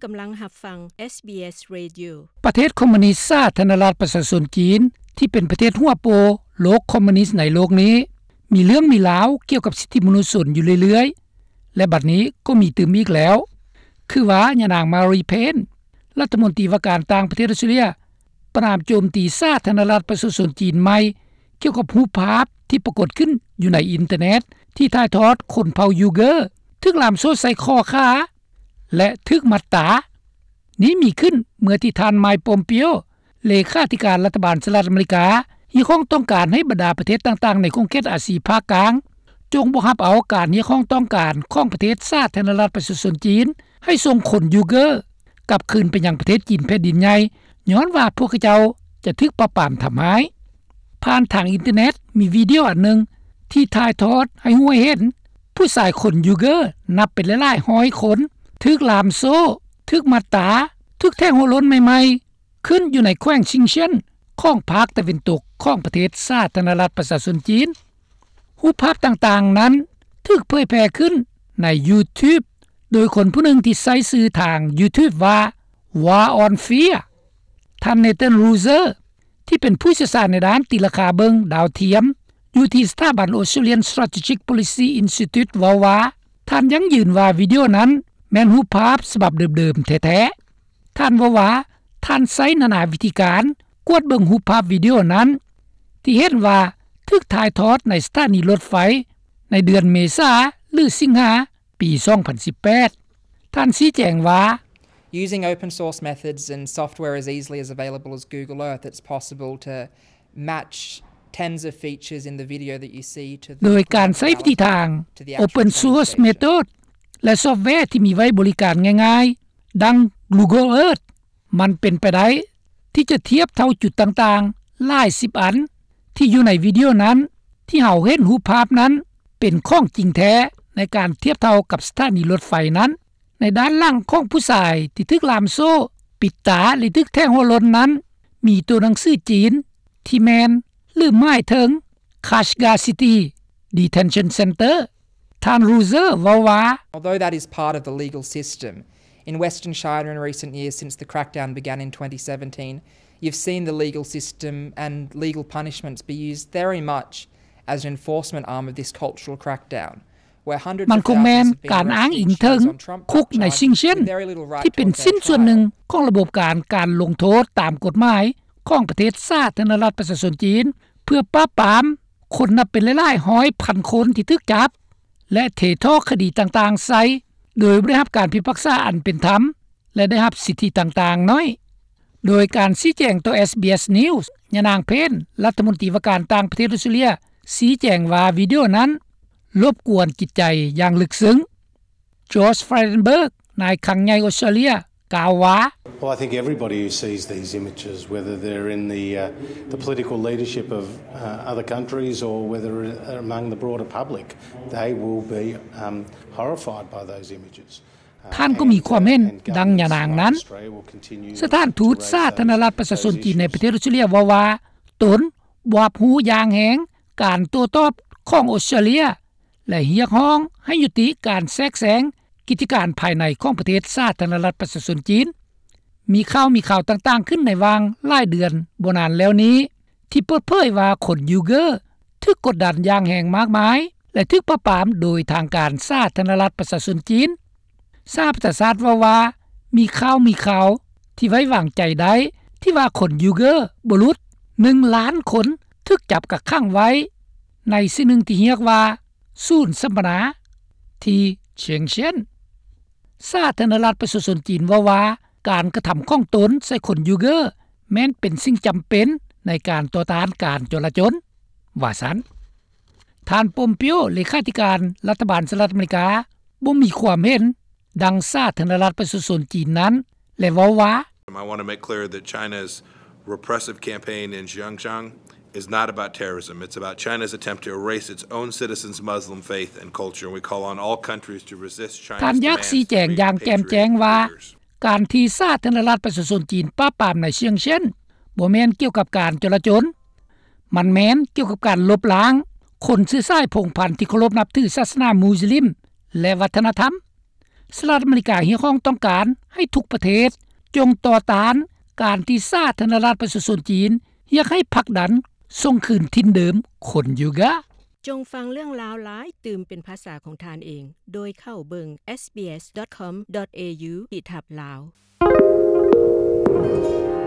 ກຳລັງຮັບຟັງ ເອສບີເອສ Radio. ປະເທດຄອມມູນິດສາທາລະນະລັດປະຊາຊົນຈີນ ທີ່ເປັນປະເທດຫົວໂປໂລກຄອມມູນິດໃນໂລກນີ້ ມີເລື່ອງມີລາວກ່ຽວກັບສິດທິມະນຸດຊົນຢູ່ເລື້ອຍໆ ແລະ ບັດນີ້ກໍມີຕື່ມອີກແລ້ວ ຄືວ່າຍານາງ ມາຣີ ເພນ ລັດຖະມົນຕີວ່າການຕ່າງປະເທດອອສເຕຣເລຍ ປະນາມໂຈມຕີສາທາລະນະລັດປະຊາຊົນຈີນໃໝ່ ກ່ຽວກັບຮູບພາບທີ່ປາກົດຂຶ້ນຢູ່ໃນອິນເຕີເນັດ ທີ່ຖ່າຍທອດຄົນເຜົ່າຢູເກີ ຖືກລ່າມໂສ້ໃສ່ຂໍ້ຂາ ແລະ ຖືກມັດຕາ. ນີ້ມີຂຶ້ນເມື່ອທີ່ທ່ານ ໄມ ປອມເປໂອ ເລຂາທິການລັດຖະບານສະຫະລັດອາເມລິກາ ຮຽກຮ້ອງຕ້ອງການໃຫ້ບັນດາປະເທດຕ່າງໆໃນຂົງເຂດອາຊີພາກກາງ ຈົ່ງບໍ່ຮັບເອົາການຮຽກຮ້ອງຕ້ອງການຂອງປະເທດສາທາລະນະລັດປະຊາຊົນຈີນ ໃຫ້ສົ່ງຄົນຢູເກີກັບຄືນໄປຍັງປະເທດຈີນແຜ່ນດິນໃຫຍ່ ຍ້ອນວ່າພວກເຂົາເຈົ້າຈະຖືກປາບປາມທຳຮ້າຍ. ຜ່ານທາງອິນເຕີເນັດ ມີວິດີໂອອັນໜຶ່ງທີ່ຖ່າຍທອດໃຫ້ຮູ້ໃຫ້ເຫັນ ຜູ້ຊາຍຄົນຢູເກີນັບເປັນຫຼາຍໆຮ້ອຍຄົນ ຖືກລ່າມໂສ້, ຖືກມັດຕາ, ຖືກແທງຫົວໂລ້ນໃໝ່ໆ ຂຶ້ນຢູ່ໃນແຂວງຊິງເຊຍນ ຂອງພາກຕາເວັນຕົກຂອງປະເທດສາທາລະນະລັດປະຊາຊົນຈີນ. ຮູບພາບຕ່າງໆນັ້ນຖືກເຜີຍແຜ່ຂຶ້ນໃນ YouTube ໂດຍຄົນຜູ້ໜຶ່ງທີ່ໃຊ້ຊື່ທາງ YouTube ວ່າ War on Fear. ທ່ານ Nathan Ruser ທີ່ເປັນຜູ້ຊ່ຽວຊານໃນດ້ານຕີລາຄາເບິ່ງດາວທຽມ ຢູ່ທີ່ສະຖາບັນ Australian Strategic Policy Institute ເວົ້າວ່າ ທ່ານຢັ້ງຢືນວ່າວິດີໂອນັ້ນແມ່ນຮູບພາບສະບັບເດີມໆແທ້ໆ. ທ່ານເວົ້າວ່າ ທ່ານໃຊ້ນານາວິທີການກວດເບິ່ງຮູບພາບວິດີໂອນັ້ນ ທີ່ເຫັນວ່າຖືກຖ່າຍທອດໃນສະຖານີລົດໄຟໃນເດືອນເມສາ ຫຼື ສິງຫາ ປີສອງພັນສິບແປດ. ທ່ານຊີ້ແຈງວ່າ Using open source methods and software as easily as available as Google Earth, it's possible to match tens of features in the video that you see to the ໂດຍການໃຊ້ວິທີທາງ Open Source Method ແລະ ຊອບແວທີ່ມີໄວ້ບໍລິການງ່າຍໆ ດັ່ງ Google Earth ມັນເປັນໄປໄດ້ທີ່ຈະທຽບເທົ່າຈຸດຕ່າງໆຫຼາຍສິບອັນ ທີ່ຢູ່ໃນວິດີໂອນັ້ນ ທີ່ເຮົາເຫັນຮູບພາບນັ້ນເປັນຂອງຈິງແທ້ ໃນການທຽບເທົ່າກັບສະຖານີລົດໄຟນັ້ນ. ໃນດ້ານຫຼັງຂອງຜູ້ຊາຍທີ່ຖືກລ່າມໂສ້, ປິດຕາ ແລະ ຖືກແທງຫົວໂລ້ນນັ້ນ ມີຕົວໜັງສືຈີນທີ່ແມ່ນ ຫຼື ໝາຍເຖິງ Kashgar City Detention Center. ທ່ານ Ruser ເວົ້າວ່າ Although that is part of the legal system, in Western China in recent years, since the crackdown began in twenty seventeen, you've seen the legal system and legal punishments be used very much as an enforcement arm of this cultural crackdown. ມັນຄົງແມ່ນການອ້າງອີງເຖິງຄຸກໃນຊິງເຊຍນ ທີ່ເປັນຊິ້ນສ່ວນໜຶ່ງຂອງລະບົບການ ການລົງໂທດຕາມກົດໝາຍຂອງປະເທດສາທາລະນະລັດປະຊາຊົນຈີນ ເພື່ອປາບປາມຄົນນັບເປັນຫຼາຍໆຮ້ອຍພັນຄົນທີ່ຖືກຈັບ ແລະ ເທທໍ່ຄະດີຕ່າງໆໃສ່ ໂດຍບໍ່ໄດ້ຮັບການພິພາກສາອັນເປັນທຳ ແລະ ໄດ້ຮັບສິດທິຕ່າງໆໜ້ອຍ. ໂດຍການຊີ້ແຈງຕໍ່ ເອສບີເອສ News ຍານາງ ເພນ ລັດຖະມົນຕີວ່າການຕ່າງປະເທດອອສເຕຣເລຍ ຊີ້ແຈງວ່າວິດີໂອນັ້ນລົບກວນຈິດໃຈຢ່າງເລິກເຊິ່ງ. Josh Frydenberg ນາຍຄັງໃຫຍ່ອອສເຕຣເລຍ ກ່າວວ່າ Well, I think everybody who sees these images, whether they're in the, uh, the political leadership of, uh, other countries or whether they're among the broader public, they will be, um, horrified by those images. ທ່ານກໍມີຄວາມເຫັນດັ່ງຍານາງນັ້ນ. ສະຖານທູດສາທາລະນະລັດປະຊາຊົນຈີນໃນປະເທດອອສເຕຣເລຍເວົ້າວ່າ ຕົນບໍ່ຮັບຮູ້ຢ່າງແຮງການໂຕ້ຕອບຂອງອອສເຕຣເລຍ ແລະ ຮຽກຮ້ອງໃຫ້ຍຸຕິການແຊກແຊງກິດຈະການພາຍໃນຂອງປະເທດສາທາລະນະລັດປະຊາຊົນຈີນ. ມີຂ່າວມີຄາວຕ່າງໆຂຶ້ນໃນຫວ່າງຫຼາຍເດືອນບໍ່ນານແລ້ວນີ້ ທີ່ເປີດເຜີຍວ່າຄົນຢູເກີຖືກກົດດັນຢ່າງແຮງມາກມາຍ ແລະ ຖືກປາບປາມໂດຍທາງການສາທາລະນະລັດປະຊາຊົນຈີນ. ສະຫະປະຊາຊາດເວົ້າວ່າ ມີຂ່າວມີຄາວທີ່ໄວ້ວາງໃຈໄດ້ ທີ່ວ່າຄົນຢູເກີບໍ່ຫຼຸດໜຶ່ງລ້ານຄົນຖືກຈັບກັກຂັງໄວ້ໃນສິ່ງໜຶ່ງທີ່ຮຽກວ່າ ສູນສຳມະນາທີ່ຊຽງເຊຍນ. ສາທາລະນະລັດປະຊາຊົນຈີນເວົ້າວ່າ ການກະທຳຂອງຕົນໃສ່ຄົນຢູເກີແມ່ນເປັນສິ່ງຈຳເປັນໃນການຕໍ່ຕ້ານການຈົລາຈົນ ວ່າຊັ້ນ. ທ່ານ ປອມເປໂອ ເລຂາທິການລັດຖະບານສະຫະລັດອາເມລິກາ ບໍ່ມີຄວາມເຫັນດັ່ງສາທາລະນະລັດປະຊາຊົນຈີນນັ້ນ ແລະ ເວົ້າວ່າ I want to make clear that China's repressive campaign in Xinjiang is not about terrorism. It's about China's attempt to erase its own citizens' Muslim faith and culture, and we call on all countries to resist China's demands to free patriotic leaders. ທ່ານຢາກຊີ້ແຈງຢ່າງແຈ່ມແຈ້ງວ່າ ການທີ່ສາທາລະນະລັດປະຊາຊົນຈີນປາບປາມໃນຊຽງເຊຍນ ບໍ່ແມ່ນກ່ຽວກັບການຈົລາຈົນ, ມັນແມ່ນກ່ຽວກັບການລົບລ້າງຄົນເຊື້ອສາຍພົງພັນທີ່ເຄົາລົບນັບຖືສາສະໜາມຸສລິມ ແລະ ວັດທະນະທຳ. ສະຫະລັດອາເມລິກາຮຽກຮ້ອງຕ້ອງການໃຫ້ທຸກປະເທດ ຈົ່ງຕໍ່ຕ້ານການທີ່ສາທາລະນະລັດປະຊາຊົນຈີນ ຢາກໃຫ້ຜັກດັນສົ່ງຄືນຖິ່ນເດີມຄົນຢູກາ. ຈົ່ງຟັງເລື່ອງລາວຫຼາຍຕື່ມເປັນພາສາຂອງທ່ານເອງ ໂດຍເຂົ້າເບິ່ງ SBS.com.au/lao